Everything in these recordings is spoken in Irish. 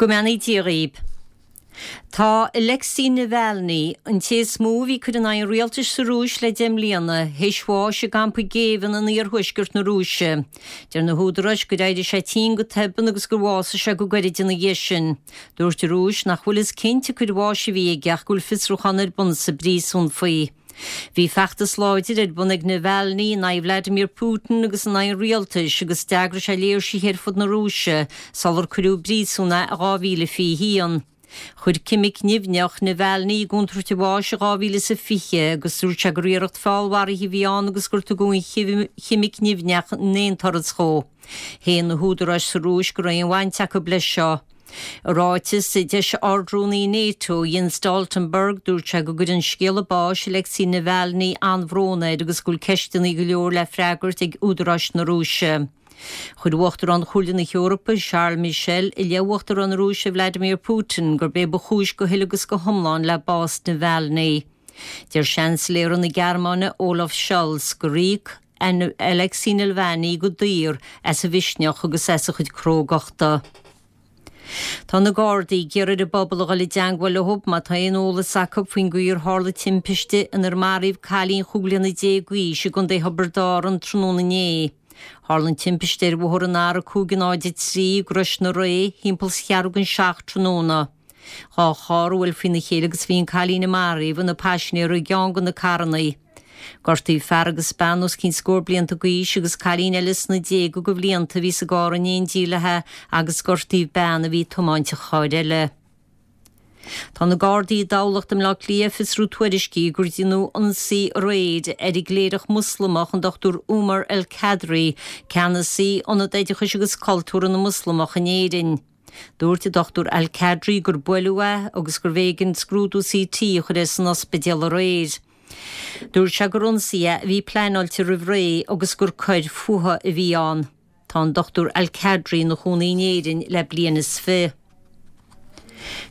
Go mbeannaí Dia dhaoib. Tá Alexei Navalny, an té is mó a bhí ag cur in aghaidh an rialtais sa Rúis le 10 mbliana, théis bháis i gcampa géibhinn in iarthuaisceart na Rúise. Deir na húdaráis gur éirigh sé tinn go tobann agus gur bhásaigh sé go gairid ina dhiaidh sin. Dúirt an Rúis nach bhfuil fhios cinnte cén bháis a bhí aige ach go bhfuil fiosrúchán ar bun sa bpríosún faoi. Bhí feachtas láidir ar bun ag Navalny in aghaidh Vladimir Putin agus in aghaidh an rialtais agus d'eagraigh sé léirsithe ar fud na Rúise sular cuireadh i bpríosún é i 2021. Chuir ceimic nimhneach Navalny i gcontúirt a bháis i 2020 agus dúirt sé gur iarracht feallmharaithe a bhí ann agus gur tugadh an cheimic nimhneach in aon turas dhó. Shéan na húdaráis sa Rúis go raibh aon bhaint acu leis seo. I ráiteas a d'eisigh Ard-Rúnaí NATO, Jens Stoltenberg, dúirt sé go gcuireann scéala báis Alexei Navalny an-bhrón air agus go bhfuil ceisteanna go leor le freagairt ag údaráis na Rúise. Chuir Uachtarán Chomhairle na hEorpa, Charles Michel, i leith Uachtarán na Rúise Vladimir Putin gurb é ba chúis go huile agus go hiomlán le bás Navalny. Deir Seansailéara na Gearmáine, Olaf Scholz, gur íoc Alexei Nalvany go daor as a mhisneach agus as a chuid crógachta. Tá na Gardaí ag iarraidh ar an bpobal a dhul i dteangmháil leo má tá aon eolas acu faoin gcaoi ar tharla timpiste inar maraíodh cailín chúig bliana déag d'aois i gContae Thiobraid Árann tráthnóna inné. Tharla an timpiste ar bhóthar an R503 i gCrois na Ré thimpeall 's cheathrú don seacht tráthnóna. Dá charr a bhuail faoina chéile agus bhí an cailín a maraíodh ina paisinéir i gceann de na carrannaí. Gortaíodh fear agus bean os cionn scór blianta d'aois agus cailín eile sna déaga de bhlianta a bhí sa gcarr in éindí léi agus gortaíodh bean a bhí ag tiomáint an chairr eile. Tá na Gardaí i dTamhlacht i mBleá Cliath ag fiosrú tuairiscí gur deineadh ionsaí aréir ar an gcléireach Moslamach an Dr Umar El Kadri, ceannasaí Ionad Oideachais agus Cultúrtha na Moslamach in Éirinn. Dúirt an Dr Al Kadri gur buaileadh é agus gurbh éigean scrúdú CT a chur air san ospidéal aréir. Dúirt sé gur ionsaí é a bhí pleanáilte roimh ré agus gur coir fuatha a bhí ann. Tá an Dr Al Kadri ina chónaí in Éirinn le bliain is fi.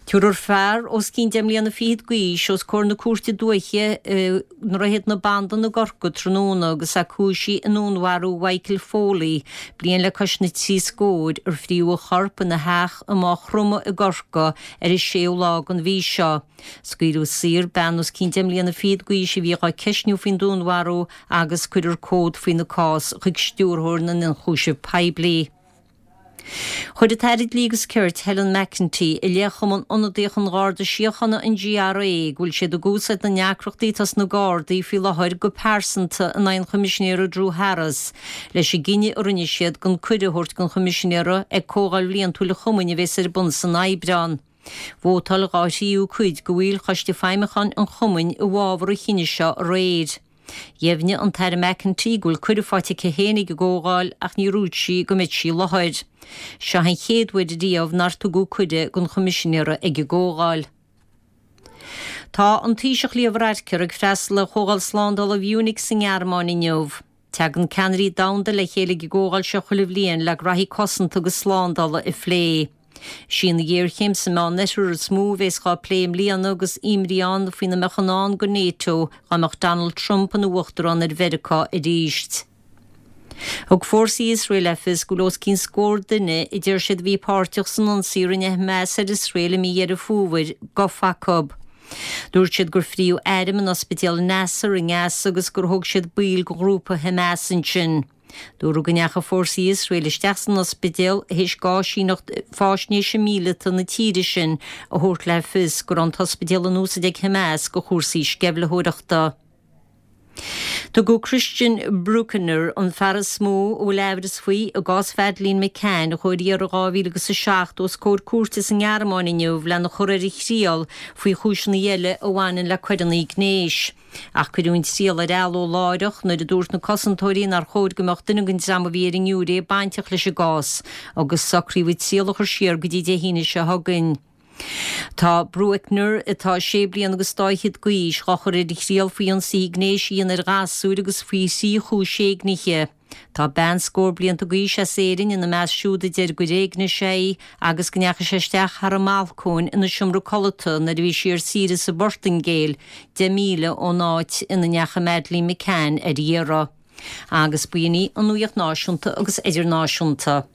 Tabharfar fear os cionn deich mbliana fichead d'aois os comhair na Cúirte Dúiche i nDroichead na Bandan i gCorcaigh tráthnóna agus é cúisithe i ndúnmharú Mhichael Foley, bliain le cois na dtrí scóir, ar fríodh a chorp ina theach i Maigh Chromtha i gCorcaigh ar an séú lá den mhí seo. Scaoileadh saor bean os cionn deich mbliana fichead d'aois a bhí dhá ceistniú faoin dúnmharú agus cuirfear comhad faoina cás chuig Stiúrthóir na nIonchúiseamh Poiblí. Chuir an tAire Dlí agus Cirt, Helen McEntee, i leith Chumann Ionadaíoch an Gharda Síochána, an GRA, go bhfuil siad ag úsáid na ndeacrachtaí atá sna Gardaí faoi láthair go pearsanta in aghaidh an Choimisinéara Drew Harris leis an gcinneadh a rinne siad gan cuireadh a thabhairt don Choimisinéara ag Comhdháil Bhliantúil an Chumainn a bheas ar bun san Aibreán. Vótáil dhá thríú cuid de bhaill Choiste Feidhmiúcháin an Chumainn i bhfabhar an chinnidh seo aréir. Dheimhnigh an tAire McEntee go bhfuil cuireadh faighte aici féin ag an gcomhdháil ach níor dhúirt sí go mbeidh sí i láthair. Seo an chéad uair riamh nár tugadh cuireadh don Choimisinéara ag an gcomhdháil. Tá an Taoiseach Leo Varadkar ag freastal ar Chomhdháil Slándála Mhunich sa nGearmáin inniu. Tagann ceannairí domhanda le chéile ag an gcomhdháil seo chuile bhliain le graithí cosanta agus slándála a phlé. Is í an ghéarchéim sa Meánoirthear is mó a bhéas dhá plé i mbliana agus imní ann faoina mbeadh i ndán do NATO dá mbeadh Donald Trump ina uachtarán ar Mheiriceá arís. Thug fórsaí Iosrael le fios go bhfuil os cionn scór duine a deir siad a bhí páirteach san ionsaí a rinne Hamas ar Iosrael i mí Dheireadh Fómhair gafa acu. Dúirt siad gur fríodh airm in ospidéal Nasser i nGaza agus gur thóg siad baill de ghrúpa Hamas ansin. Dúradh go ndeachaigh fórsaí Iosrael isteach san ospidéal théis d'áisíneacht faisnéise míleata na tíre sin a thabhairt le fios go raibh an t-ospidéal in úsaid ag Hamas do chúrsaí sceimhlitheoireachta. Tugadh Christian Brueckner, an fear is mó a bhfuil aimhreas faoi i gcás Mhadeleine McCann a chuaigh ar iarraidh in 2007, os comhair cúirte sa nGearmáin inniu lena chur ar a thriail faoi chúiseanna eile a bhaineann le coireanna gnéis. Ach cuireadh an triail ar athló láithreach nuair a dúirt na cosantóirí nár chóir go mbeadh duine den dream a bhí ar an ngiúiré bainteach leis an gcás agus socraíodh an triail a chur siar go dtí Dé hAoine seo chugainn. Tá Brueckner, atá sé bliana agus dá fhichead d'aois, dhá chur ar a thriail faoi ionsaithe gnéis a dhéanamh ar ghasúir agus faoi thrí chúis éignithe. Tá bean scór blianta d'aois as Éirinn ina measc siúd a deir gur éignigh sé í agus go ndeachaigh sé isteach thar an mbalcóin ina seomra codlata nuair a bhí sí ar saoire sa bPortaingéil, 10 míle ón áit ina ndeachaigh Madeleine McCann ar iarraidh. Agus b'in í an nuacht náisiúnta agus idirnáisiúnta.